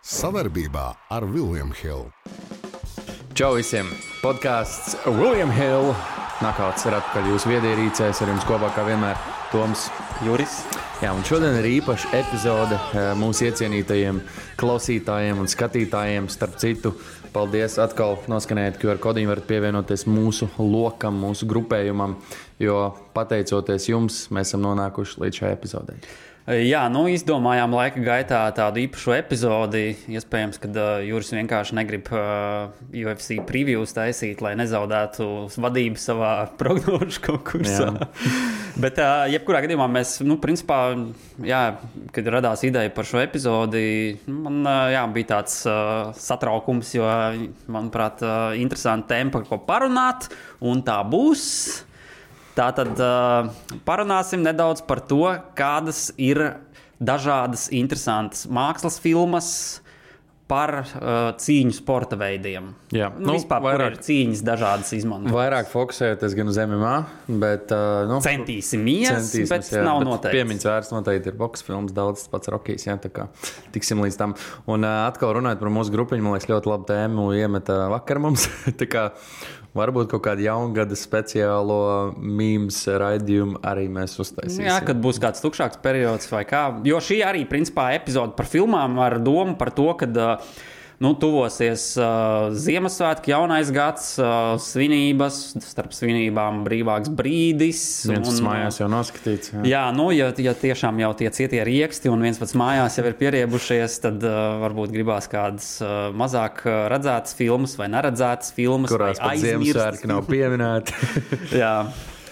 Savarbībā ar William Hill. Čau visiem! Podcasts William Hill. Nakauts ir atpakaļ jūsu viedierīcēs, ar jums kopā kā vienmēr Toms, Juris. Jā, un šodien ir īpaša epizode mūsu iecienītajiem klausītājiem un skatītājiem. Starp citu, paldies atkal noskanējot QR kodiņu, varat pievienoties mūsu lokam, mūsu grupējumam, jo pateicoties jums, mēs esam nonākuši līdz šai epizodei. Jā, izdomājām laika gaitā tādu īpašu epizodi. Iespējams, ka Juris vienkārši negrib UFC previews taisīt, lai nezaudētu vadību savā prognožu konkursā. Bet, jebkurā gadījumā mēs, principā, kad radās ideja par šo epizodi, man bija tāds satraukums, jo, manuprāt, interesanti tēma, par ko parunāt, un tā būs. Tātad parunāsim nedaudz par to, kādas ir dažādas interesantas mākslas filmas par cīņu sporta veidiem. Jā, vispār, vairāk, kur ir cīņas dažādas izmantotas. Vairāk fokusējoties gan uz MMA, bet... Centīsimies, bet nav noteikti. Piemiņas vērts noteikti ir boks filmas, daudz pats Rokijs, jā, tā kā tiksim līdz tam. Un atkal runājot par mūsu grupiņu, man liekas, ļoti labu tēmu iemeta vakar mums, tā kā... Varbūt kaut kādu jaungada speciālo mīmes raidījumu arī mēs uztaisīsim. Jā, kad būs kāds tukšāks periods vai kā. Jo šī arī, principā, epizode par filmām ar domu par to, kad tuvosies Ziemassvētki, jaunais gads, svinības, starp svinībām brīvāks brīdis. Viens pats mājās jau noskatīts. Jā, ja tiešām jau tie cietie rieksti un viens pats mājās jau ir pieriebušies, tad varbūt gribās kādas mazāk redzētas filmas vai neredzētas filmas. Kurās pat Ziemassvētki nav pieminēti. Jā,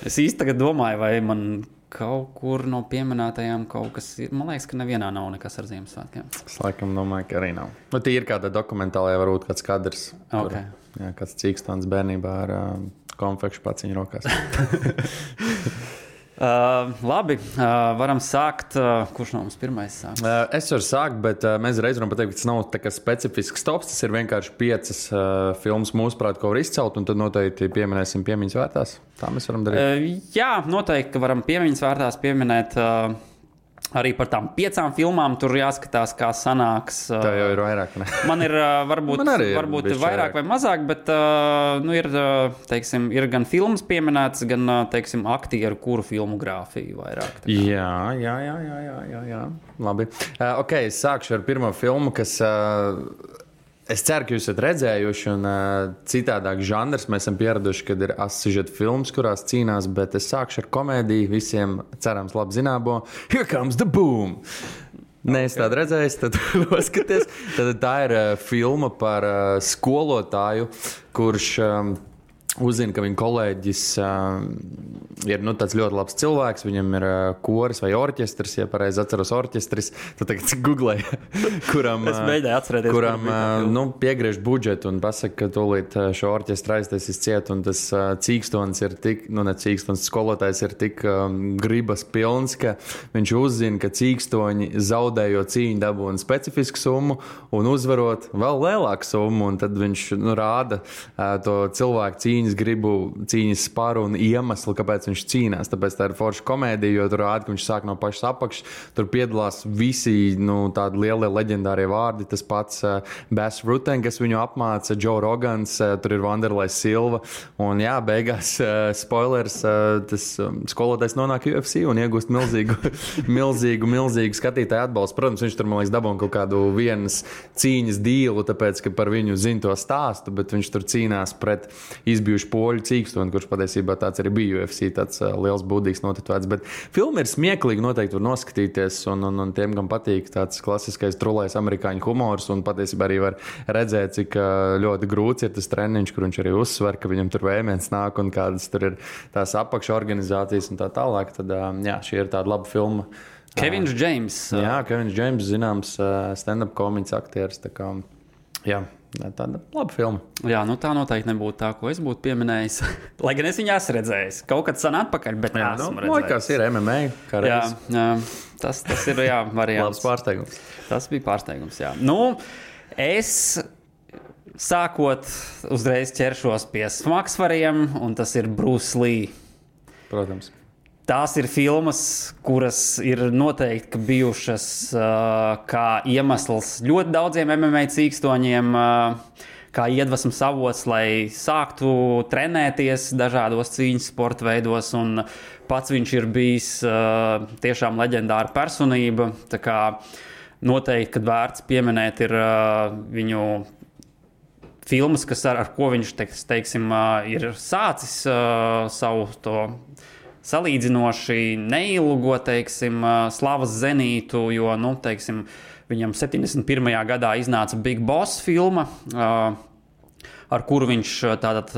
es īsti tagad domāju, vai man... Kaut kur no pieminētajām kaut kas ir. Man liekas, ka nevienā nav nekas ar Ziemassvētkiem. Es laikam domāju, ka arī nav. Bet ir kāda dokumentālajā varbūt kāds kadrs. Okay. Kur, kāds cīkstons bērnībā ar konfekšu paciņu rokās. Labi, varam sākt. Kurš no mums pirmais sāks? Es varu sākt, bet mēs reiz varam pateikt, ka tas nav tā kā specifisks tops. Tas ir vienkārši 5 filmas mūsuprāt, ko var izcelt, un tad noteikti pieminēsim piemiņas vērtās. Tā mēs varam darīt. Jā, noteikti, ka varam piemiņas vērtās pieminēt arī par tām 5 filmām. Tur jāskatās, kā sanāks. Tā jau ir vairāk, ne? Man ir varbūt vairāk vai mazāk, bet ir gan filmas pieminētas, gan, aktieru, kuru filmogrāfiju vairāk. Jā. Labi. Es sākšu ar pirmo filmu, kas... Es ceru, ka jūs esat redzējuši, un citādāk žanrs. Mēs esam pieraduši, kad ir asižeta filmas, kurās cīnās, bet es sākšu ar komēdiju. Visiem cerams labi zināmo. Here comes the boom! Nē, es tādu redzēju, tad noskaties. Tad tā ir filma par skolotāju, kurš... uzzina, ka viņa kolēģis ir tāds ļoti labs cilvēks. Viņam ir koris vai orķestris, ja pareizi atceros orķestris. Tad tagad googlēju, kuram piegriež budžetu un pasaka, ka tūlīt šo orķestru aiztaisīs ciet. Un tas cīkstons ir tik, skolotājs ir tik gribas pilns, ka viņš uzzina, ka cīkstoņi zaudējot cīņu dabūna specifisku summu un uzvarot vēl lielāku summu. Un tad viņš rāda to cilvēku cīņas sparu un iemeslu, kāpēc viņš cīnās. Tāpēc tā ir forša komēdija, jo tur rāda, ka viņš sāk no pašas apakšas. Tur piedalās visi tādi lielie leģendārie vārdi. Tas pats Bas Rutten, kas viņu apmāca, Joe Rogans, tur ir Wanderlei Silva. Un jā, beigās spoilers, tas skolotājs nonāk UFC un iegūst milzīgu skatītāju atbalstu. Protams, viņš tur, man liekas, dabūna kaut kādu vienas cīņas dīlu, tāpēc, ka par viņu zina to stāstu, bet viņš tur cīnās pret izbijuši poļu cīkstoni, kurš patiesībā tāds arī bija UFC, tāds liels būdīgs notetovēts. Bet filma ir smieklīga, noteikti var noskatīties, un tiem, kam patīk tāds klasiskais trulais amerikāņu humors, un patiesībā arī var redzēt, cik ļoti grūts ir tas treniņš, kur viņš arī uzsver, ka viņam tur vējiens nāk un kādas tur ir tās apakša organizācijas un tā tālāk. Tad, šī ir tāda laba filma. Kevins Džeims. Jā, Kevins Džeims, zināms, stand-up komiķis aktieris, tā kā, jā. Tāda laba filma. Jā, tā noteikti nebūtu tā, ko es būtu pieminējis. Lai gan es viņu esmu redzējis. Kaut kad sen atpakaļ, bet esmu redzējis. Likās ir MMA. Jā, tas ir variants. Labs pārsteigums. Tas bija pārsteigums, jā. Es sākot uzreiz ķeršos pie smagsvariem, un tas ir Bruce Lee. Protams. tās ir filmas, kuras ir noteikti bijušas kā iemesls ļoti daudziem MMA cīkstoņiem, kā iedvesmas avots, lai sāktu trenēties dažādos cīņas sporta veidos, un pats viņš ir bijis tiešām leģendāra personība, tā kā noteikti, kad vērts pieminēt ir viņu filmas, ar ko viņš, teiksim, ir sācis savu to salīdzinoši neilgo, teiksim, slavas zenītu, jo, nu, teiksim, viņam 71. gadā iznāca Big Boss filma, ar kuru viņš tātad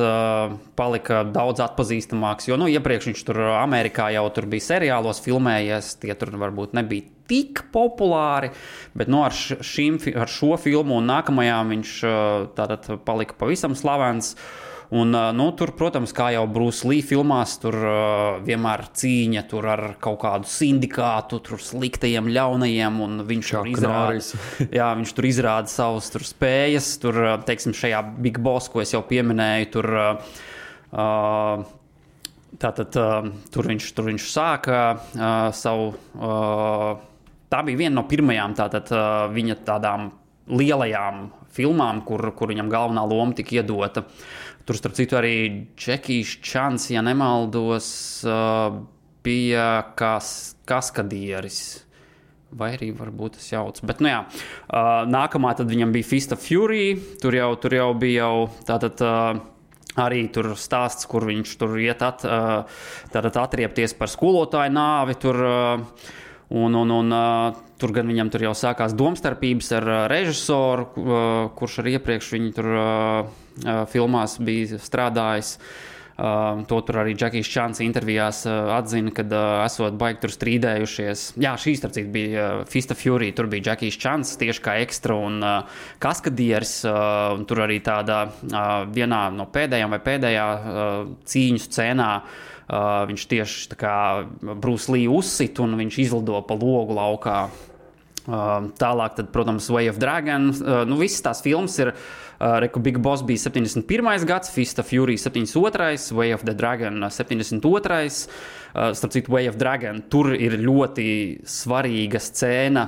palika daudz atpazīstamāks, jo, nu, iepriekš viņš tur Amerikā jau tur bija seriālos filmējies, tie tur varbūt nebija tik populāri, bet, nu, ar šo filmu un nākamajām viņš tātad palika pavisam slavens. Un, nu, tur, protams, kā jau Bruce Lee filmās, tur vienmēr cīņa tur ar kaut kādu sindikātu, tur sliktajiem, ļaunajiem, un viņš viņš tur izrāda savas tur spējas, tur, teiksim, šajā Big Boss, ko es jau pieminēju, tur, tātad, tur viņš sāka savu, tā bija viena no pirmajām tātad viņa tādām lielajām filmām, kur viņam galvenā loma tika iedota. Tur, starp citu, arī Džekijs Čans, ja nemaldos, bija kaskadieris. Vai arī varbūt tas jauc. Bet, nu jā, nākamā tad viņam bija Fist of Fury. Tur jau bija tātad arī tur stāsts, kur viņš tur iet tātad atriepties par skolotāju nāvi. Tur, tur gan viņam tur jau sākās domstarpības ar režisoru, kurš arī iepriekš viņu tur filmās bija strādājis. To tur arī Džekijs Čans intervijās atzina, kad esot baigi tur strīdējušies. Jā, šī starp citu bija Fist of Fury, tur bija Džekijs Čans tieši kā ekstra un kaskadieris. Tur arī tādā vienā no pēdējām vai pēdējā cīņu scēnā viņš tieši tā kā Bruce Lee uzsit un viņš izlido pa logu laukā. Tālāk, tad, protams, Way of Dragon. Nu, visas tās filmas ir, Big Boss bija 71. gads, Fist of Fury 72. Way of the Dragon 72. Starp citu, Way of Dragon, tur ir ļoti svarīga scēna,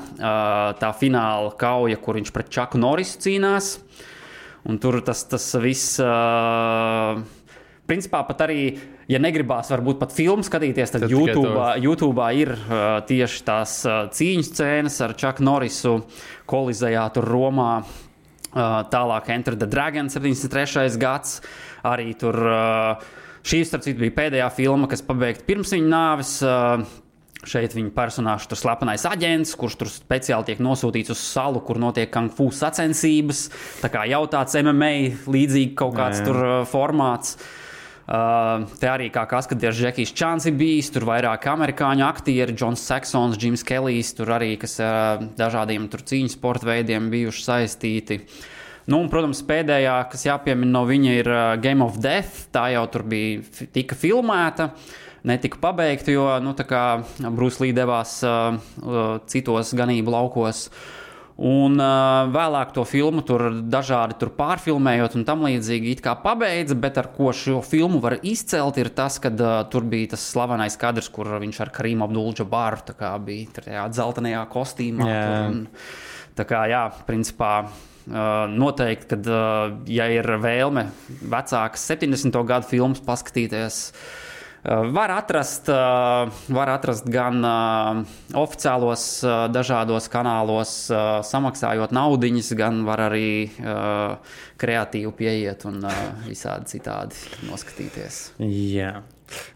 tā fināla kauja, kur viņš pret Chucku Norrisu cīnās. Un tur tas viss... Principā pat arī, ja negribās varbūt pat filmu skatīties, tad YouTube'ā ir tieši tās cīņas scēnas ar Chucku Norrisu kolizējā tur Romā. Tālāk Enter the Dragon 73. gads. Arī tur šī, starp citu, bija pēdējā filma, kas pabeigta pirms viņa nāves. Šeit viņa personāžs tur slepenais aģents, kurš tur speciāli tiek nosūtīts uz salu, kur notiek kung fu sacensības. Tā kā jau tāds MMA līdzīgi kaut kāds tur formāts. Te arī kā kaskadieris Džekijs Čans ir bijis, tur vairāk amerikāņu aktieri, Džons Saksons, Džims Kelijs, tur arī, kas dažādiem tur cīņas sporta veidiem bijuši saistīti. Nu, un, protams, pēdējā, kas jāpiemina no viņa, ir Game of Death. Tā jau tur tika filmēta, netika pabeigta, jo, nu, tā kā Bruce Lee devās citos ganību laukos. Un vēlāk to filmu tur dažādi tur pārfilmējot un tam līdzīgi it kā pabeidza, bet ar ko šo filmu var izcelt ir tas, kad tur bija tas slavenais kadrs, kur viņš ar Karīmu Abdul-Džabaru tā kā bija tajā dzeltenajā kostīmā. Tā kā, jā, principā noteikti, kad, ja ir vēlme vecākas 70. gadu filmas paskatīties, var atrast gan oficiālos dažādos kanālos, samaksājot naudiņas, gan var arī kreatīvi pieiet un visādi citādi noskatīties. Jā.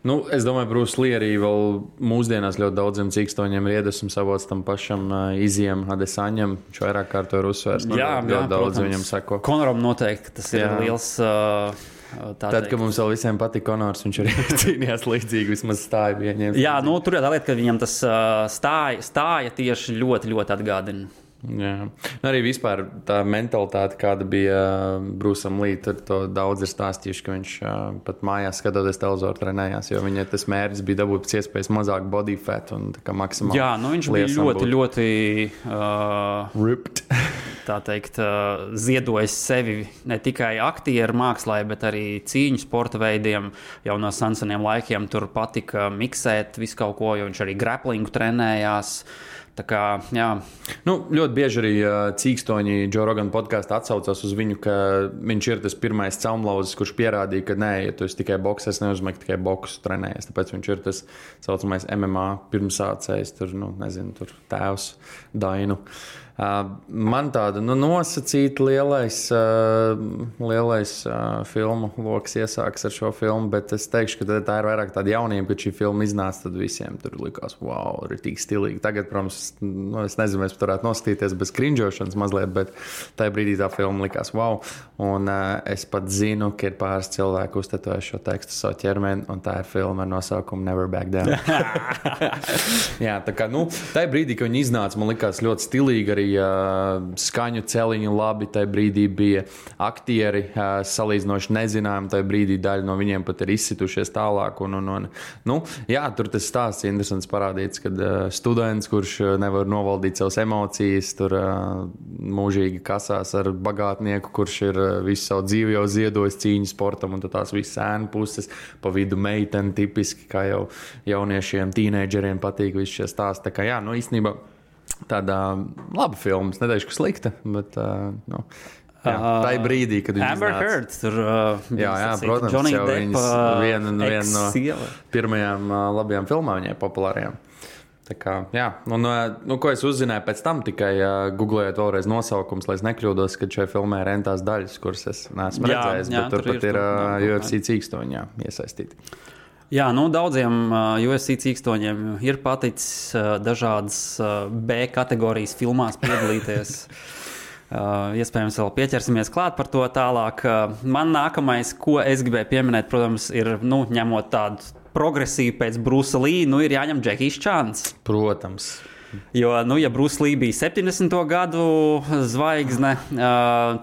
Nu, es domāju, Bruce Lee arī vēl mūsdienās ļoti daudziem cīkstoņiem ir iedvesmas avots tam pašam Izijam Adesaņam. Viņš vairāk kārto ir uzsvērts. Ļoti daudz viņam sako. Konoram noteikti tas ir liels... Tad, kad mums vēl visiem patīk Konors, viņš arī cīnījās līdzīgi, vismaz stāja bija ņemts. Jā, nu, tur ir tā lieta, ka viņam tas stāja tieši ļoti, ļoti atgādina. Jā. Arī vispār tā mentalitāte, kāda bija Bruceam Lee, tur to daudz ir stāstījuši, ka viņš pat mājās skatoties televizoru trenējās, jo viņa tas mērķis bija dabūt pēc iespējas mazāk body fat un tā kā maksimāli. Jā, nu viņš bija ļoti, ļoti... ripped. tā teikt, ziedojis sevi ne tikai aktieru mākslā, bet arī cīņu sporta veidiem. Jau no seniem laikiem tur patika miksēt visu kaut ko, jo viņš arī graplingu trenējās. Tā kā, jā. Nu, ļoti bieži arī cīkstoņi Joe Rogan podkāstā atsaucās uz viņu, ka viņš ir tas pirmais caumlauzis, kurš pierādīja, ka nē, ja tu esi tikai boks, es neuzmanīju tikai boksu trenējies. Tāpēc viņš ir tas saucamais MMA pirmsācējs, tur, nu, nezinu, tur tēvs Dainu. Man tāda nosacīta lielais filmu loks iesāks ar šo filmu, bet es teikšu, ka tā ir vairāk tāda jaunība, kad šī filma iznāca, tad visiem tur likās, wow, ir tik stilīgi. Tagad, protams, es nezinu, mēs varētu noskatīties bez krinžošanas mazliet, bet tajā brīdī tā filma likās, wow. Un es pat zinu, ka ir pāris cilvēki uztetojuši šo tekstu savu ķermeni, un tā ir filma ar nosaukumu Never Back Down. Jā, tā kā, tajā brīdī, kad viņi iznāca, man likās ļoti stilīgi arī skaņu celiņu labi, tajā brīdī bija aktieri salīdzinoši nezinājumi, tajā brīdī daļa no viņiem pat ir izsitušies tālāk. Jā, tur tas stāsts interesants parādīts, kad students, kurš nevar novaldīt savas emocijas, tur mūžīgi kasās ar bagātnieku, kurš ir visu savu dzīvi jau ziedojis cīņu sportam, un tās visas ēnu puses, pa vidu meiteni tipiski, kā jau jauniešiem, tīneidžeriem patīk visi šie stāsti. Tā kā jā, īstenībā tāda laba filma, es neteikšu, ka slikta, bet tā ir brīdī, kad viņi Amber Heard tur jā, protams, Johnny jau Depp, viena no pirmajām labajām filmām viņai populārajām. Tā kā, jā, ko es uzzināju pēc tam, tikai googlējot vēlreiz nosaukums, lai es nekļūdos, ka šajā filmē ir entās daļas, kuras es neesmu redzējis, bet tur pat ir UFC cīkstoņi iesaistīti. Jā, daudziem UFC cīkstoņiem ir paticis dažādas B kategorijas filmās piedalīties. Iespējams, vēl pieķersimies klāt par to tālāk. Man nākamais, ko es gribēju pieminēt, protams, ir, ņemot tādu progresīvu pēc Brusa Lī, ir jāņem Džekijs Čans. Protams. Jo, ja Bruce Lee bija 70. gadu zvaigzne,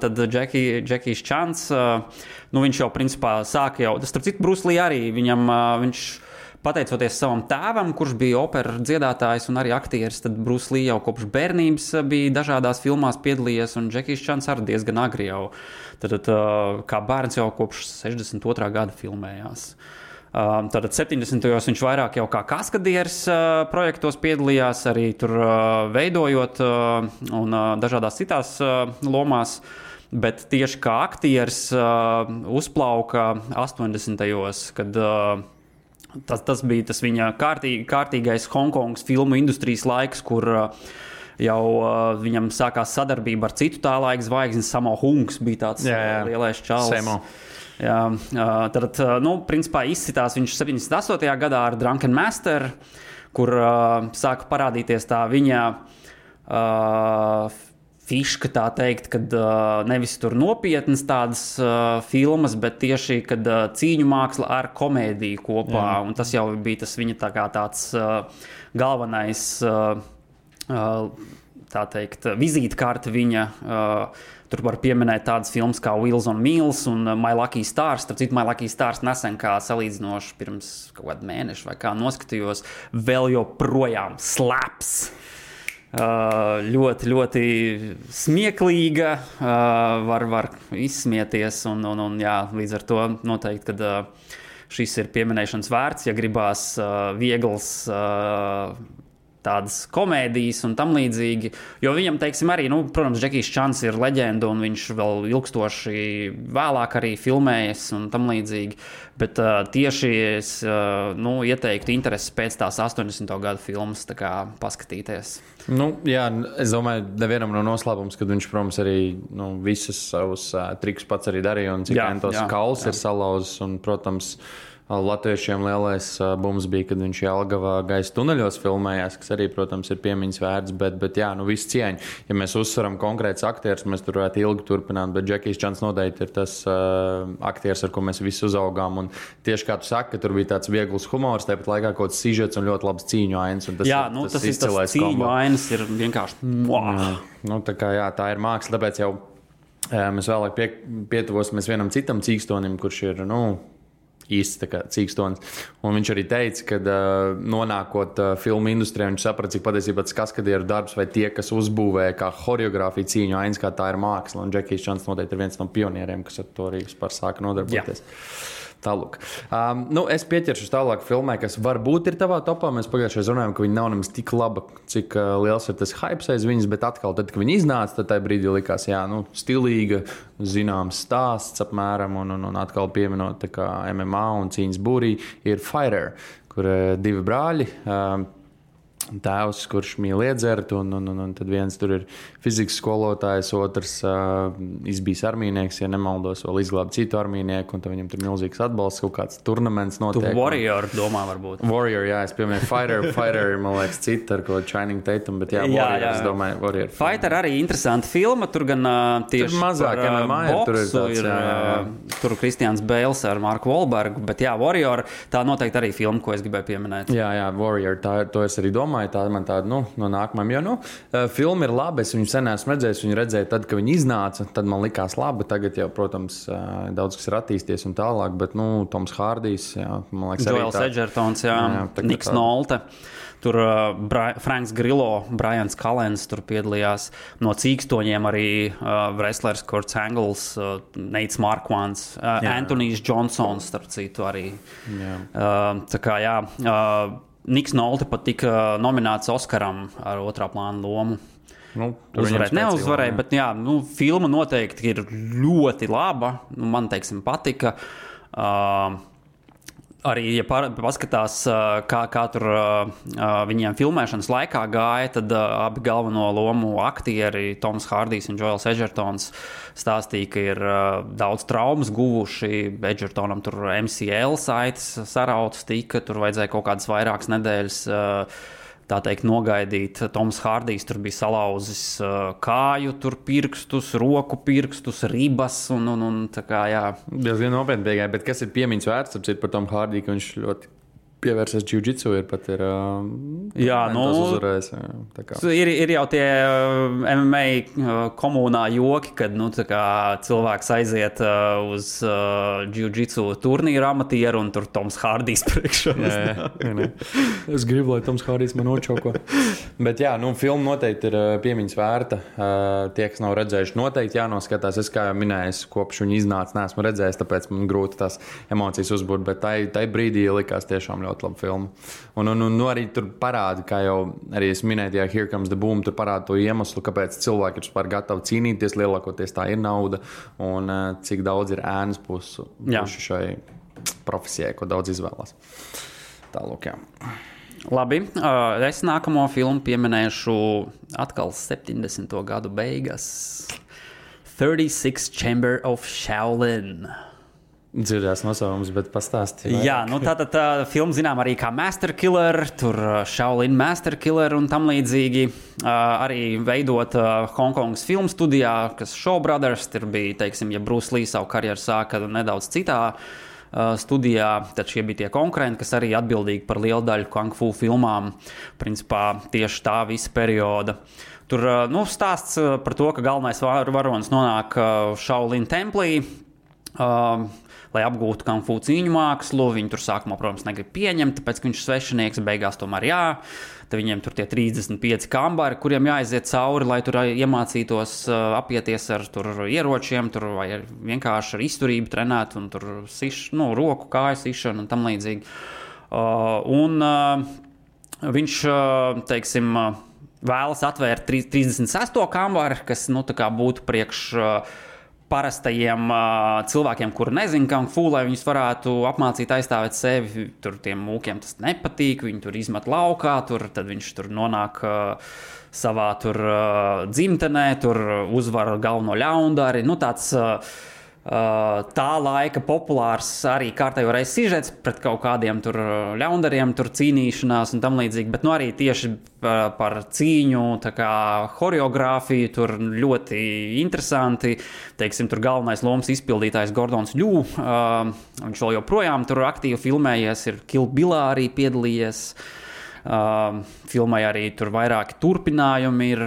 tad Džekijs Čans, viņš jau principā sāka jau, starp citu, Bruce Lee arī, viņš pateicoties savam tēvam, kurš bija opera dziedātājs un arī aktieris, tad Bruce Lee jau kopš bērnības bija dažādās filmās piedalījies, un Džekijs Čans arī diezgan agri jau, tad kā bērns jau kopš 62. gada filmējās. Tātad 70. viņš vairāk jau kā kaskadieris projektos piedalījās, arī tur veidojot un dažādās citās lomās, bet tieši kā aktieris uzplauka 80. kad tas bija tas viņa kārtīgais Hongkongas filmu industrijas laiks, kur jau viņam sākās sadarbība ar citu tā laika zvaigzni. Sammo Hungs bija tāds lielais čalis. Samo. Jā, tad, principā izcitās viņš 78. gadā ar Drunken Master, kur sāka parādīties tā viņa fiška, tā teikt, kad nevis tur nopietnas tādas filmas, bet tieši, kad cīņu māksla ar komēdiju kopā. Jā. Un tas jau bija tas viņa tāds galvenais, tā teikt, vizītkarte viņa. Tur var pieminēt tādas filmas kā Wheels on Meals un My Lucky Stars. Starp citu, My Lucky Stars nesen kā salīdzinoši pirms kaut kādu mēnešu vai kā noskatījos, vēl joprojām slaps. Ļoti, ļoti smieklīga, var izsmieties un jā, līdz ar to noteikti, kad šis ir pieminēšanas vērts, ja gribās viegls tādas komēdijas un tam līdzīgi, jo viņam, teiksim, arī, protams, Džekijs Čans ir leģenda un viņš vēl ilgstoši vēlāk arī filmējas un tam līdzīgi, bet tieši es, ieteiktu interesi pēc tās 80. gadu filmas, tā kā paskatīties. Jā, es domāju, nevienam no noslēpums, kad viņš, protams, arī visus savus trikus pats arī darīja un cik entos kauls ir salauzis un, protams, latviešiem lielais bums bija, kad viņš Jelgavā gaisa tuneļos filmējās, kas arī, protams, ir piemiņas vērts, bet jā, viss cieņa. Ja mēs uzsveram konkrēts aktieris, mēs tur varētu ilgi turpināt, bet Džekijs Čans noteikti ir tas aktieris, ar ko mēs visi uzaugām. Un tieši kā tu saki, ka tur bija tāds viegls humors, tāpat laikā kaut kāds sižets un ļoti labs cīņu ainas. Jā, tas ir tas cīņu ainas ir vienkārši tā kā jā, tā ir māksla, tāpēc jau mēs vēlāk pietuvosimies vienam citam cīkstonim, kurš ir, īsts tā kā cīkstons. Un viņš arī teica, ka nonākot filmu industrijā, viņš saprata, cik patiesībā tas kaskadieru darbs vai tie, kas uzbūvēja kā choreogrāfiju cīņu ainas, kā tā ir māksla. Un Džekijs Čans noteikti ir viens no pionieriem, kas ar to arī vispār sāka nodarboties. Tālūk. Es pieķeršu tālāk filmai, kas varbūt ir tavā topā. Mēs pagājušajā runājām, ka viņa nav nemaz tik laba, cik liels ir tas hypes aiz viņas, bet atkal, tad, kad viņa iznāca, tad tajā brīdī likās, stilīga, zināms stāsts apmēram, un atkal pieminot tā kā MMA un cīņas būrī, ir Fighter, kur divi brāļi, tēvs, kurš mīl iedzert, un tad viens tur ir fizikas skolotājs, otrs izbijis armijnieks, ja nemaldos, vēl izglāba citu armijnieku, un tad viņam tur milzīgs atbalsts, kaut kāds turnaments notiek. Tu Warrior domā varbūt. Warrior, jā, es pieminēju Fighter, man liekas, cita ar ko Channing Tatum, bet Warrior, es domāju, Warrior. Fighter arī interesanta filma, tur gan tieši tur mazāk MMA boksu tur Kristians Bēls ar Marku Wahlbergu, bet Warrior, tā noteikti arī filma, ko es gribēju pieminēt. Jā, Warrior, to es arī domāju. Tā man tāda, no nākamajām, jo, filma ir laba, es viņu sen esmu redzējis, viņu redzēju tad, kad viņi iznāca, tad man likās laba, tagad jau, protams, daudz kas ir attīsties un tālāk, bet, Toms Hārdijs, man liekas, Joels Edgertons, Niks Nolte, tur Franks Grillo, Brians Kalens tur piedalījās, no cīkstoņiem arī wrestlers Kurts Angles, Neits Marquards, Antonijs Johnsons, starp citu arī. Tā kā, Niks Nolte pat tika nominēts Oskaram ar otrā plāna lomu. Uzvarēt neuzvarēja, bet filma noteikti ir ļoti laba. Man, teiksim, patika. Arī, ja paskatās, kā tur viņiem filmēšanas laikā gāja, tad abi galveno lomu aktieri, Toms Hārdijs un Joels Edgertons, stāstīja, ka ir daudz traumas guvuši. Edgertonam tur MCL saites sarautas tika, tur vajadzēja kaut kādas vairākas nedēļas tā teikt, nogaidīt. Toms Hārdijs tur bija salauzis kāju, tur pirkstus, roku pirkstus, ribas un tā kā, Diezgan nopietni tikai, bet kas ir piemiņas vērts, par Tomu Hārdiju, ka viņš ļoti pievērsies jiu-jitsu, ir pat uzvarējis. Ir jau tie MMA komunā joki, kad cilvēks aiziet uz jiu-jitsu turnīru amatieru un tur Toms Hārdijs priekšā. Es gribu, lai Toms Hārdijs man nočoko. Bet filma noteikti ir piemiņas vērta. Tie, kas nav redzējuši, noteikti jānoskatās. Es, kā jau minēju, kopš viņa iznāca, neesmu redzējis, tāpēc man grūti tās emocijas uzbūt, bet tai brīdī likās tiešām ļoti laba filma. Un arī tur parāda, kā jau arī es minēju, Here Comes the Boom, tur parāda to iemeslu, kāpēc cilvēki ir vispār gatavi cīnīties, lielākoties tā ir nauda, un cik daudz ir ēnas pušu šai profesijai, ko daudz izvēlās. Tālūk, Labi, es nākamo filmu pieminēšu atkal 70. gadu beigas. 36 Chamber of Shaolin. Dzirdējās nosaukums, bet pastāstīja. Jā, tātad tā filma zinām arī kā Master Killer, tur Shaolin Master Killer un tam līdzīgi. Arī veidot Hongkongas filmu studijā, kas Shaw Brothers, tur bija, teiksim, ja Bruce Lee savu karjeru sāka nedaudz citā studijā, tad šie bija tie konkurenti, kas arī atbildīgi par lielu daļu kung fu filmām, principā tieši tā visa perioda. Tur stāsts par to, ka galvenais varonis nonāk Shaolin templī, lai apgūtu kung fu cīņu mākslu. Viņi tur sākumā, protams, negrib pieņemt, tāpēc, ka viņš ir svešinieks, beigās tomēr Tad viņiem tur tie 35 kambari, kuriem jāaiziet cauri, lai tur iemācītos apieties ar tur ieročiem, tur vai vienkārši ar izturību trenēt un tur roku, kāju sišanu un tam līdzīgi. Viņš, teiksim, vēlas atvērt 36. kambari, kas, tā kā būtu priekš parastajiem cilvēkiem, kuri nezina kung fu, lai viņus varētu apmācīt aizstāvēt sevi. Tur tiem mūkiem tas nepatīk, viņi tur izmet laukā, tad viņš tur nonāk savā tur dzimtenē, tur uzvar galveno ļaundari. Tāds tā laika populārs arī kārtējo reizi sižets pret kaut kādiem tur ļaundariem, tur cīnīšanās un tam līdzīgi, bet arī tieši par cīņu, tā kā horeogrāfiju, tur ļoti interesanti. Teiksim, tur galvenais lomas izpildītājs Gordons Ļū, viņš vēl joprojām tur aktīvi filmējies, ir Kill Billā arī piedalījies. Filmai arī tur vairāki turpinājumi ir.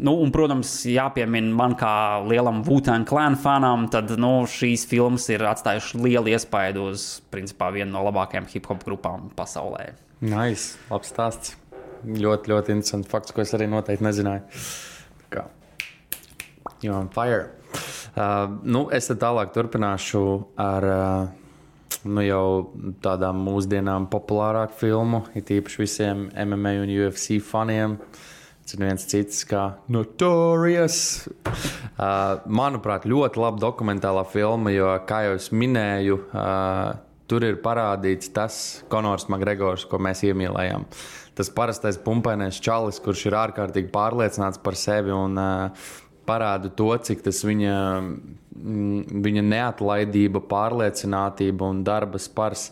Un, protams, jāpiemina man kā lielam Wu-Tang Clan fanam, tad šīs filmas ir atstājušas lielu iespaidu uz, principā, vienu no labākajām hip-hop grupām pasaulē. Nice, labs stāsts. Ļoti, ļoti interesants fakts, ko es arī noteikti nezināju. Tā kā, you're on fire. Es tad tālāk turpināšu ar jau tādām mūsdienām populārāku filmu, it īpaši visiem MMA un UFC faniem. Tas ir viens cits kā Notorious. Manuprāt, ļoti laba dokumentālā filma, jo, kā jau es minēju, tur ir parādīts tas Conors McGregors, ko mēs iemīlējām. Tas parastais pumpainais čalis, kurš ir ārkārtīgi pārliecināts par sevi un parāda to, cik tas viņa neatlaidība, pārliecinātība un darba spars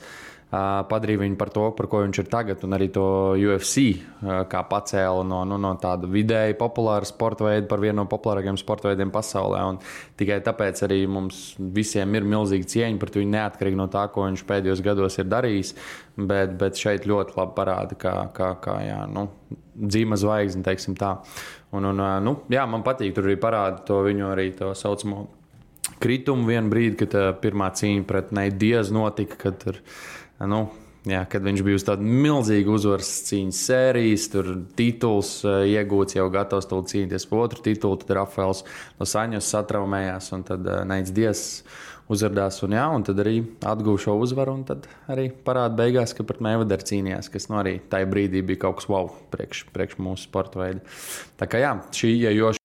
padarīja viņu par to, par ko viņš ir tagad, un arī to UFC kā pacēla no tāda vidēji populāra sporta veida par vienu no populārākajiem sporta veidiem pasaulē. Un tikai tāpēc arī mums visiem ir milzīgi cieņa par viņu neatkarīgi no tā, ko viņš pēdējos gados ir darījis, bet šeit ļoti labi parāda, kā dzīma zvaigzne, teiksim tā. Man patīk, tur arī parāda to viņu arī to saucamo kritumu vienu brīdi, kad pirmā cīņa pret Nate Diaz notika, kad viņš bija uz tādu milzīgu uzvaras cīņas sērijas, tur tituls iegūts, jau gatavs tūlīt cīnīties par otru titulu, tad Rafaels Dos Anjos satraumējās, un tad Nates Diaz uzvardās, un tad arī atguva šo uzvaru, un tad arī parāda beigās, ka pret Mayweather cīnījās, kas arī tajā brīdī bija kaut kas wow priekš mūsu sporta veida. Tā kā šī iejoša.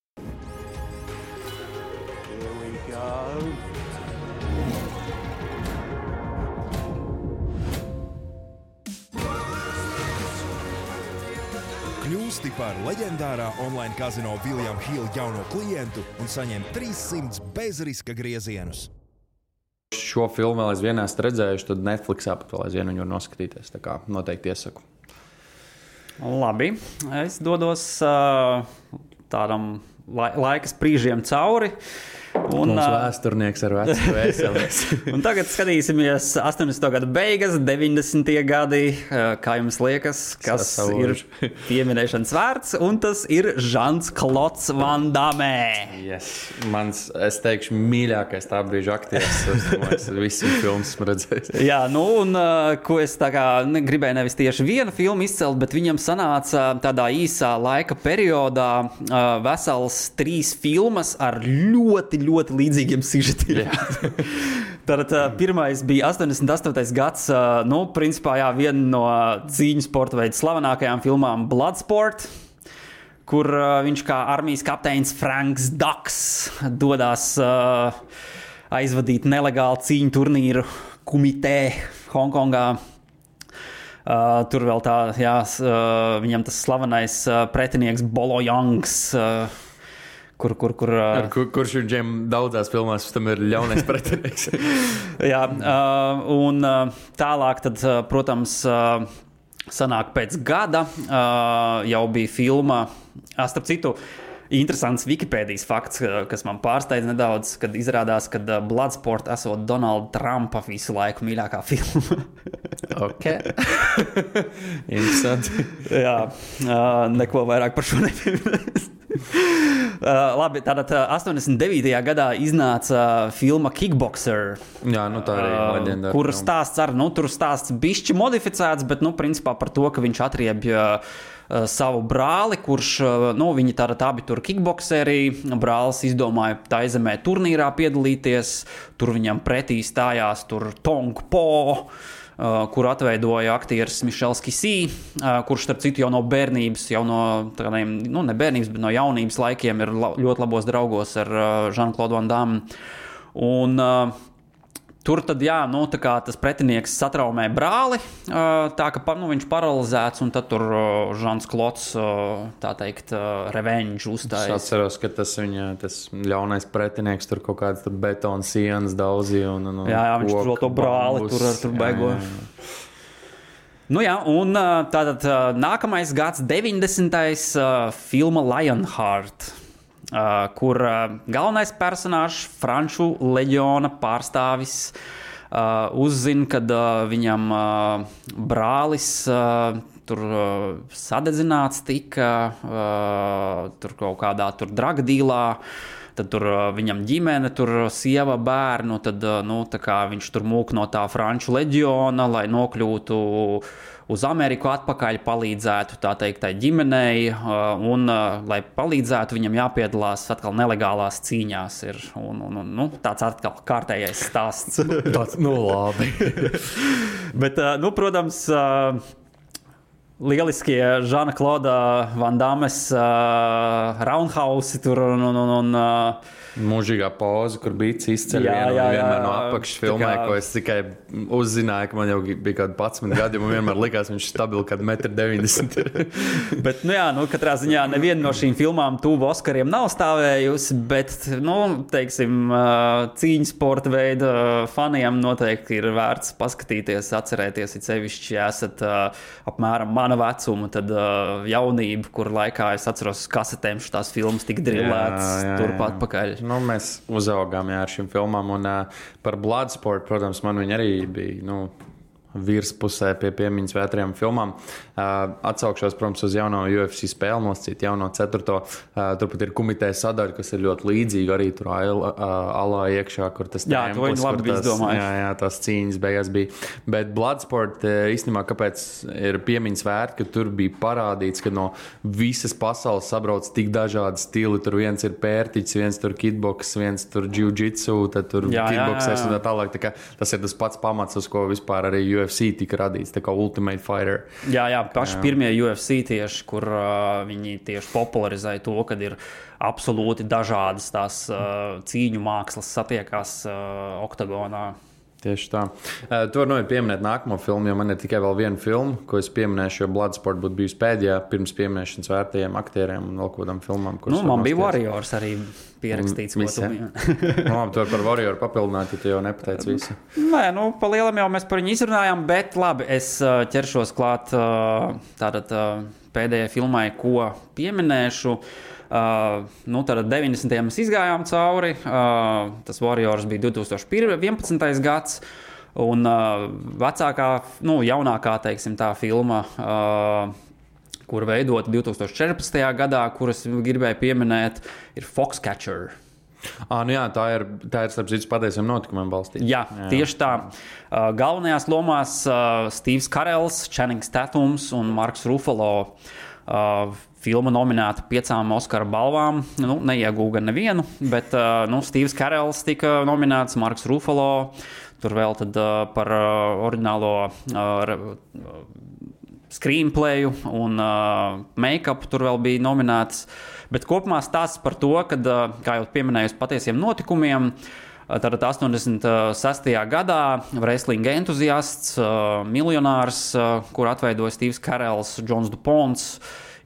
Kļūsti par leģendārā online kazino William Hill jauno klientu un saņem 300 bezriska griezienus. Šo filmu vēl aizvien esmu redzējuši, tad Netflixā pat vēl aizvien viņu var noskatīties. Tā kā noteikti iesaku. Labi, es dodos tādam laika sprīžiem cauri. Mums vēsturnieks ar vecu vēseles. Un tagad skatīsimies 80. gadu beigas, 90. gadi. Kā jums liekas, kas ir pieminēšanas vērts? Un tas ir Jean-Claude Van Damme. Yes. Es teikšu, mīļākais tā brīža aktieris. Es visu filmu esmu redzējis. Jā, ko es tā kā gribēju nevis tieši vienu filmu izcelt, bet viņam sanāca tādā īsā laika periodā vesels 3 filmas ar ļoti līdzīgiem sižetiem. Tad pirmais bija 88. gads, principā viena no cīņu sporta veidu slavenākajām filmām Bloodsport, kur viņš kā armijas kapteinis Franks Dux dodās aizvadīt nelegālu cīņu turnīru Kumite Hongkongā. Tur vēl viņam tas slavenais pretinieks Bolo Youngs, kurš viņam daudzās filmās tam ir ļaunais pretinieks. Jā, un tālāk tad, protams, sanāk pēc gada jau bija filma, starp citu, interesants Wikipēdijas fakts, kas man pārsteidz nedaudz, kad izrādās, ka Bloodsport esot Donalda Trumpa visu laiku mīļākā filma. Ok. Interesanti. Jā, neko vairāk par šo nepieminēs. Labi, tātad 89. gadā iznāca filma Kickboxer. Jā, tā arī leģendāra. Kur stāsts tur stāsts bišķi modificēts, bet, principā par to, ka viņš atriebja savu brāli, kurš, viņi tātad abi tur kickboxeri. Brālis izdomāja Taizemē turnīrā piedalīties. Tur viņam pretī stājās tur Tong Po, kur atveidoja aktieris Mišels Kisī, kurš, starp citu, jau no bērnības, jau no tādiem, ne bērnības, bet no jaunības laikiem ir ļoti labos draugos ar Jean-Claude Van Damme. Un tur tad, tā kā tas pretinieks satraumē brāli, tā ka viņš paralizēts, un tad tur Jean-Claude, tā teikt, revenge uzstājas. Es atceros, ka tas ļaunais pretinieks tur kaut kāds betona sienas daudzīja. Jā, viņš tur to brāli tur baigo. Un tātad nākamais gads, 90. Filma Lionheart, kur galvenais personāžs, Franču leģiona pārstāvis, uzzina, kad viņam brālis tur sadedzināts tika, tur kaut kādā tur dragdīlā. Tad tur viņam ģimene, tur sieva, bērnu, tad tā kā viņš tur mūk no tā franču leģiona, lai nokļūtu uz Ameriku atpakaļ, palīdzētu tā teikt tai ģimenei, un lai palīdzētu viņam jāpiedalās atkal nelegālās cīņās ir, un tāds atkal kārtējais stāsts. Tāds, labi. Bet, protams, lieliskie Žana Klauda Van Dammes roundhouse tur un mūžīgā poza, kur bija izceļ vienmēr no apakšas filmē, ko es tikai uzzināju, ka man jau bija kādi 11 gadi, man vienmēr likās, viņš stabili kādu 1,90 m. Bet, katrā ziņā neviena no šīm filmām tuvu Oskariem nav stāvējusi, bet, teiksim, cīņas sporta veida faniem noteikti ir vērts paskatīties, atcerēties, it sevišķi, ja esat apmēram mana vecuma, tad jaunība, kur laikā es atceros kasetēm šitās filmas tik drillētas turpat pakaļ. Mēs uzaugām ar šīm filmām, un par Bloodsport, protams, man viņa arī bija, virspusē pie piemiņas vētrajām filmām. Atsaukšos, protams, uz jauno UFC spēli, nosacīt jauno 4. Turpat ir Kumite sadaļa, kas ir ļoti līdzīga, arī tur alā iekšā, kur tas tempus. Jā, to viņi labi bija izdomājuši. Jā, tās cīņas beigās bija. Bet Bloodsport, īstenībā, kāpēc ir piemiņas vērti, ka tur bija parādīts, ka no visas pasaules sabrauc tik dažādi stili. Tur viens ir pērtiķis, viens tur kitboks, viens tur jiu-jitsu, tad tur kitboksers un tā tālāk. Tā kā tas ir tas pats pamats, uz ko vispār arī UFC tika radīts, tā kā Ultimate Fighter. Jā, paši pirmie UFC tieši, kur viņi tieši popularizēja to, kad ir absolūti dažādas tās cīņu mākslas satiekās oktagonā. Tieši tā. Tu vari pieminēt nākamo filmu, jo man ir tikai vēl viena filma, ko es pieminēšu, jo Bloodsport būtu bijusi pēdējā pirms pieminēšanas vērtajiem aktieriem un vēl kādām filmām. Man bija Warriors arī pierakstīts. Tu vari par Warrior papildināt, ja tu jau nepateici visu. Nē, pa lielam jau mēs par viņu izrunājām, bet labi, es ķeršos klāt tātad pēdējai filmai, ko pieminēšu. Tātad 90. mēs izgājām cauri, tas Warriors bija 2011. gads, un vecākā, jaunākā, teiksim, tā filma, kur veidota 2014. gadā, kuras gribēju pieminēt, ir Foxcatcher. Tā ir starp citu patiesiem notikumiem balstīta. Jā, tieši tā. Galvenajās lomās Steves Carells, Channings Tatums un Marks Ruffalo. Filma nominēta 5 Oskara balvām. Neiegūga nevienu, bet Steves Carells tika nominēts, Marks Ruffalo. Tur vēl tad par oriģinālo screenplayu un make-up tur vēl bija nominēts. Bet kopumā stāsts par to, kad, kā jau pieminēju, patiesiem notikumiem, tātad 86. gadā wrestling entuziasts, miljonārs, kur atveidoja Steves Carells, Johns DuPonts,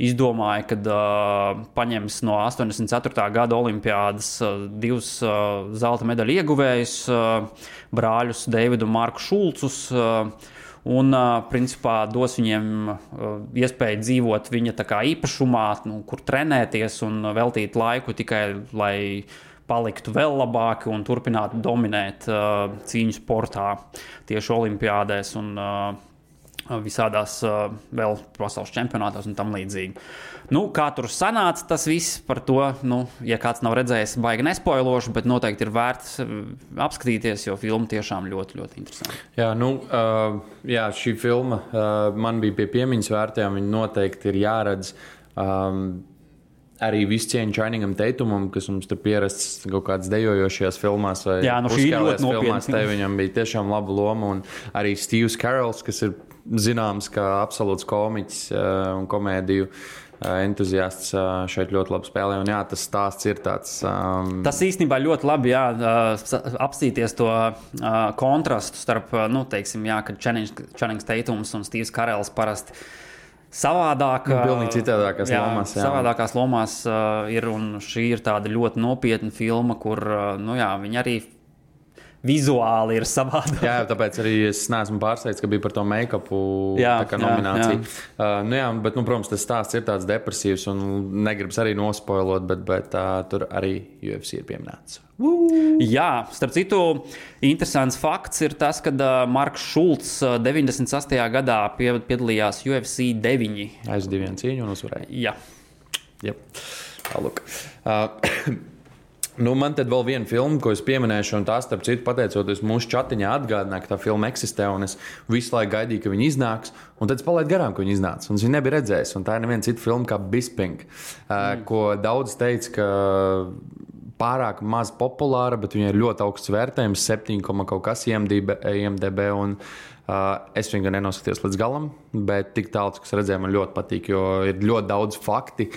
izdomāja, kad paņems no 84. gada olimpiādas 2 zelta medaļu ieguvējus, brāļus Deividu un Marku Šulcus, un principā dos viņiem iespēju dzīvot viņa tā kā īpašumā, kur trenēties un veltīt laiku tikai, lai paliktu vēl labāki un turpinātu dominēt cīņu sportā tieši olimpiādēs un visādās vēl pasaules čempionātos un tam līdzīgi. Kā tur sanāca tas viss par to, ja kāds nav redzējis, baigi nespoilošu, bet noteikti ir vērts apskatīties, jo filma tiešām ļoti, ļoti interesanti. Jā, šī filma man bija pie piemiņas vērtējām, viņa noteikti ir jāredz. Arī visu cieņu Channingam Tatumam, kas mums tur pierasts kaut kādas dejojošajās filmās vai uzskālēs filmās, te viņam bija tiešām laba loma, un arī Steves Carells, kas ir zināms kā absolūts komiķis un komēdiju entuziasts, šeit ļoti labi spēlē, un tas stāsts ir tāds... Tas īstenībā ļoti labi, apstīties to kontrastu starp, kad Channings Tatums un Steves Carells parasti pilnīgi citādākās lomās. Savādākās lomās ir, un šī ir tāda ļoti nopietna filma, kur, viņi arī vizuāli ir savādāk. Jā, tāpēc arī es neesmu pārsteigts, ka bija par to make-upu nomināciju. Bet, protams, tas stāsts ir tāds depresīvs un negribas arī nospoilot, bet tur arī UFC ir pieminēts. Jā, starp citu, interesants fakts ir tas, ka Marks Šulcs 98. gadā piedalījās UFC 9. Aiz 2 cīņu un uzvarēja. Jā. Yep. Tālūk. Man tad vēl viena filma, ko es pieminēšu, un tā, starp citu, pateicoties mūsu chatiņā, atgādināja, ka tā filma eksistē, un es visu laiku gaidīju, ka viņa iznāks, un tad es palaidu garām, ka viņa iznāca, un es viņu nebiju redzējis, un tā ir neviena cita filma kā Bisping, ko daudz teica, ka pārāk maz populāra, bet viņai ir ļoti augsts vērtējums, 7, kaut kas IMDb, un es viņu nenoskatījos līdz galam, bet tik tālu, kas redzēju, man ļoti patīk, jo ir ļoti daudz fakti,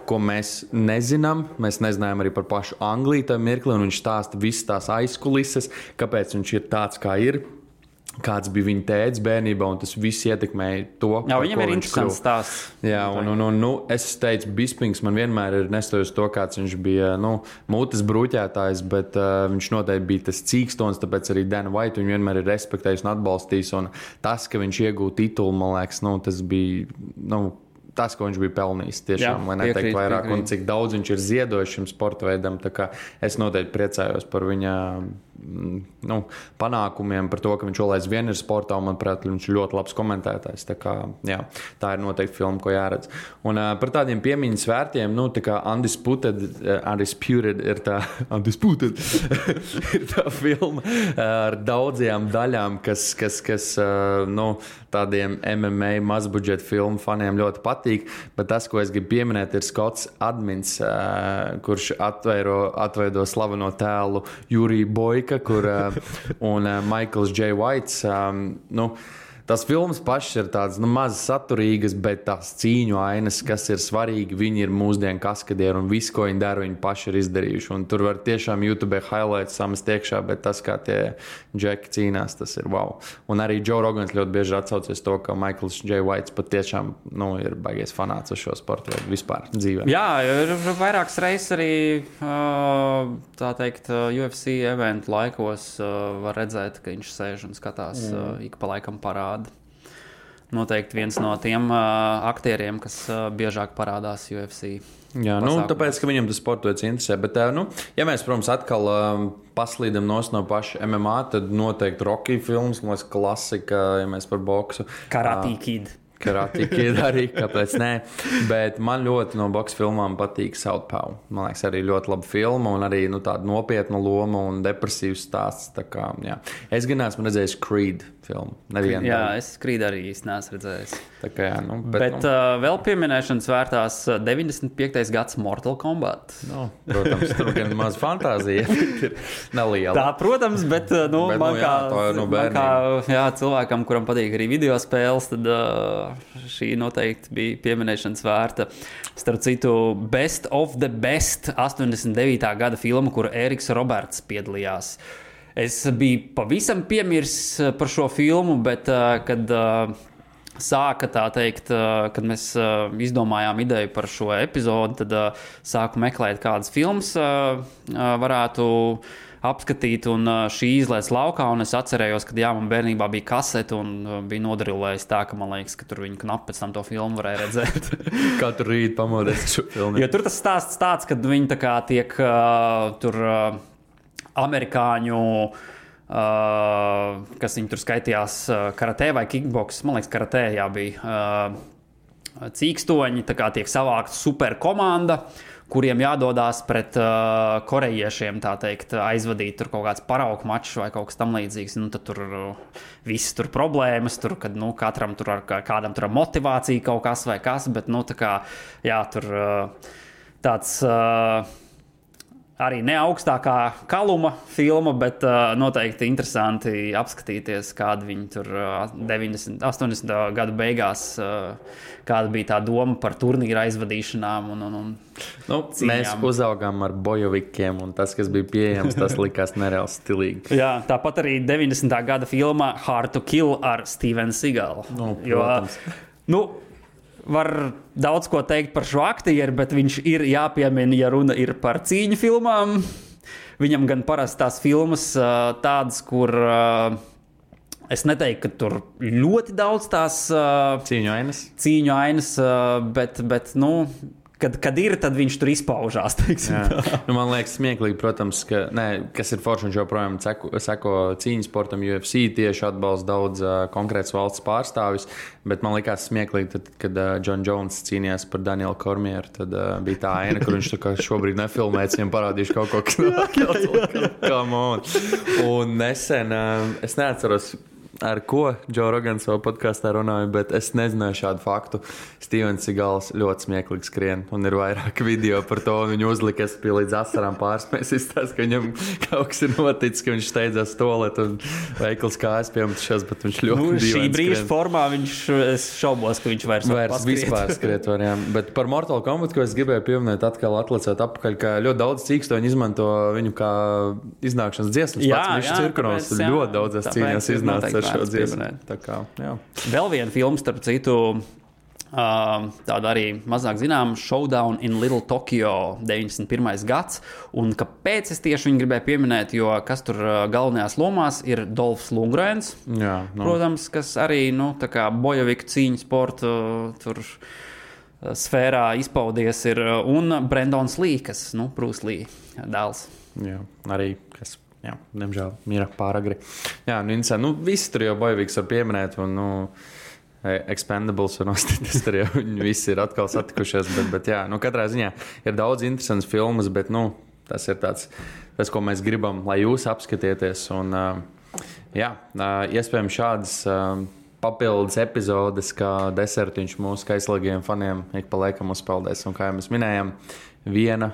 ko mēs nezinām. Mēs nezinājām arī par pašu Angliju tajā mirklī, un viņš stāsta visas tās aizkulises, kāpēc viņš ir tāds, kā ir, kāds bija viņa tēvs bērnībā, un tas viss ietekmēja to, jā, viņam ir interesants stāsts. Jā, un es teicu, Bispings man vienmēr ir nestojis to, kāds viņš bija, mutes bruķētājs, bet viņš noteikti bija tas cīkstons, tāpēc arī Dana White viņu vienmēr ir respektējis un atbalstījis, un tas, ka viņš iegūta titulu, man liekas, tas bija, tas, ko viņš bija pelnījis, tiešām, lai neteikt vairāk, un cik daudz viņš ir ziedojis šim sporta veidam, tā kā es noteikti priecājos par viņa panākumiem, par to, ka viņš vēl aizvien ir sportā, un, manuprāt, viņš ir ļoti labs komentētājs, tā kā, jā, tā ir noteikti filma, ko jāredz. Un par tādiem piemiņas vērtiem, tā kā Undisputed ir tā, Undisputed ir tā filma ar daudzajām daļām, kas tādiem MMA mazbudžeta filmu faniem ļoti patīk, bet tas, ko es gribu pieminēt, ir Skots Admins, kurš atveido slaveno tēlu Juriju Boika, un Michaels J. Whites. Tas filmas pašas ir tādas maz saturīgas, bet tās cīņu ainas, kas ir svarīgi, viņi ir mūsdienu kaskadieri, un viss, ko viņi dara, viņi paši ir izdarījuši. Un tur var tiešām YouTube highlights samest iekšā, bet tas, kā tie džeki cīnās, tas ir wow. Un arī Joe Rogans ļoti bieži atsaucies to, ka Michaels J. Whites pat tiešām ir baigies fanāts uz šo sportu veidu vispār dzīvē. Jā, ir vairākas reizes arī, tā teikt, UFC eventu laikos var redzēt, ka viņš sēž un skatās ik pa laikam parādu. Noteikti viens no tiem aktieriem, kas biežāk parādās UFC. Jā, tāpēc, ka viņam tas sports interesē. Bet, ja mēs, protams, atkal paslīdam no paša MMA, tad noteikti Rocky filmas, man liekas, klasika, ja mēs par boksu. Karate Kid. Karate Kid arī, kāpēc nē. Bet man ļoti no boksa filmām patīk Southpaw. Man liekas, arī ļoti laba filma un arī tāda nopietna loma un depresīvs stāsts. Tā kā, jā. Es gan esmu redzējis Creed filmu. Jā, es Creed arī īsti neesmu redzējis. Tā kā, jā, bet vēl pieminēšanas vērtās 95. gads Mortal Kombat. Protams, tur gan maz fantāzija ir neliela. Tā, protams, bet man kā cilvēkam, kuram patīk arī video spēles, tad šī noteikti bija pieminēšanas vērta. Starp citu, Best of the Best 89. gada filma, kuru Eriks Roberts piedalījās. Es biju pavisam piemirsis par šo filmu, bet kad sāka tā teikt, kad mēs izdomājām ideju par šo epizodi, tad sāku meklēt, kādas filmas varētu apskatīt, un šī izlaiž laukā, un es atcerējos, ka man bērnībā bija kasete, un bija nodarilējis tā, ka man liekas, ka tur viņi knapi pēc tam to filmu varēja redzēt. Katru rītu pamodies šo filmu. Jo tur tas stāsts tāds, kad viņi tā kā tiek tur amerikāņu, kas viņi tur skaitījās karatē vai kickboks, man liekas, karatē bija cīkstoņi, tā kā tiek savākta superkomanda, kuriem jādodās pret korejiešiem, tā teikt, aizvadīt tur kaut kāds paraugu mačs vai kaut kas tam līdzīgs. Tad tur viss tur problēmas, tur, kad katram tur kādam tur motivācija kaut kas vai kas, bet tā kā, jā, tur tāds arī ne augstākā kaluma filma, bet noteikti interesanti apskatīties, kāda viņi tur 80. gadu beigās, kāda bija tā doma par turnīra aizvadīšanām un mēs uzaugām ar bojovikiem, un tas, kas bija pieejams, tas likās nereāli stilīgi. Jā, tāpat arī 90. gada filma Hard to Kill ar Stevenu Seagalu. Protams. Var daudz ko teikt par šo aktieru, bet viņš ir jāpiemina, ja runa ir par cīņu filmām. Viņam gan parasti tās filmas tādas, kur es neteiktu, ka tur ļoti daudz tās Cīņu ainas, bet kad ir, tad viņš tur izpaužās. Man liekas, smieklīgi, protams, kas ir forši, viņš joprojām seko cīņas sportam, UFC tieši atbalsta daudz konkrēts valsts pārstāvis, bet man liekas smieklīgi, tad, kad John Jones cīnījās par Danielu Kormieru, tad bija tā aina, kur viņš šobrīd nefilmēts, viņam parādījuši kaut ko, come on. Un nesen, es neatceros, ar ko Joe Rogans savā podkāstā runāja, bet es nezināju šādu faktu. Stevens Seagals ļoti smieklīgi skrien, un ir vairāk video par to, un viņu uzlika, es biju līdz asarām pārspējis, izstāst, ka viņam kaut kas ir noticis, ka viņš steidzās toalet un veikals kājas piemetušās, bet viņš ļoti dīvaini šī brīža formā es šaubos, ka viņš vairs vispār skriet var, jā. Bet par Mortal Kombat, ko es gribēju pieminēt, atkal atlicēt apakaļ, ka ļoti daudz cīkstoņi izmanto viņu kā iznākšanas dziesmas. Pats viņš cirkunos ļoti daudzas cīņās iznāca ar šo dziesmu. Tā kā, jā. Vēl viena filma, starp citu, tāda arī mazāk zinām, Showdown in Little Tokyo, 91. gads. Un kāpēc es tieši viņu gribēju pieminēt, jo kas tur galvenajās lomās ir Dolfs Lundgrens, protams, kas arī, tā kā bojaviku cīņu sportu tur sfērā izpaudies ir, un Brendons Lee, kas, Bruce Lee dēls. Jā, arī, kas, diemžēl, mira pāragri. Jā, visi tur jau bojaviks var pieminēt, un, Expendables un Ostitis, tur jau viņi visi ir atkal satikušies, bet jā, katrā ziņā ir daudz interesants filmas, bet, tas ir tas, ko mēs gribam, lai jūs apskatieties, un, iespējams šādas papildus epizodes, kā desertiņš mūsu kaislīgiem faniem ik pa laikam uzpeldēs, un kā jau mēs minējām, viena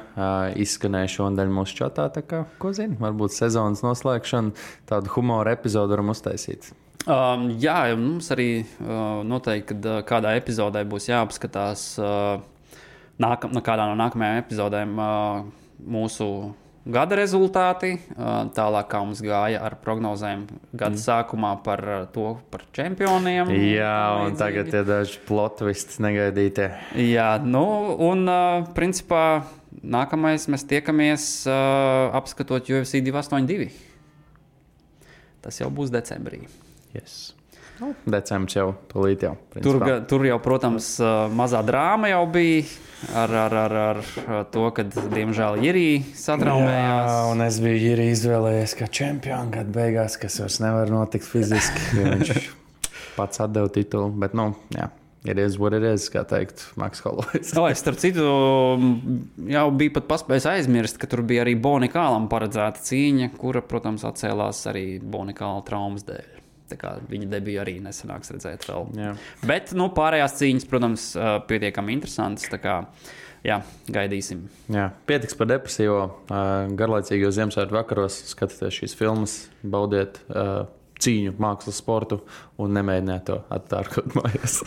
izskanēja šodien mūsu čatā, tā kā, ko zini, varbūt sezonas noslēgšana, tādu humora epizodu varam uztaisīt. Jā, mums arī noteikti, kad kādā epizodē būs jāapskatās kādā no nākamajām epizodēm mūsu gada rezultāti, tālāk kā mums gāja ar prognozēm gada sākumā par čempioniem. Jā, un tagad ir daži plot twists negaidītie. Jā, un principā nākamais mēs tiekamies apskatot UFC 282. Tas jau būs decembrī. Yes. Decembris jau tūlīt jau. Tur jau, protams, mazā drāma jau bija ar to, kad, diemžēl, Jirī satraumējās. Jā, un es biju Jirī izvēlējies kā čempionu gadu beigās, kas vairs nevar notikt fiziski, jo viņš pats atdeva titulu, bet, it is what it is, kā teikt Maks Holloway's. Starp citu, jau bija pat paspējis aizmirst, ka tur bija arī Bonikālam paredzēta cīņa, kura, protams, atcēlās arī Bonikāla traumas dēļ. Tā kā viņa debiju arī nesanāks redzēt vēl. Jā. Bet, pārējās cīņas, protams, pietiekami interesantas, tā kā, gaidīsim. Jā, pietiks par depresīvo, garlaicīgos Ziemassvētku vakaros, skatieties šīs filmas, baudiet cīņu, mākslas, sportu un nemēģiniet to attārkot mājās.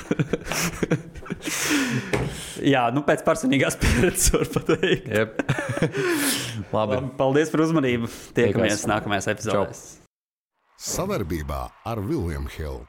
Jā, pēc personīgās pieredzes var pateikt. Yep. Labi. Paldies par uzmanību. Tiekamies nākamajās epizodēs. Savarbībā ar William Hill.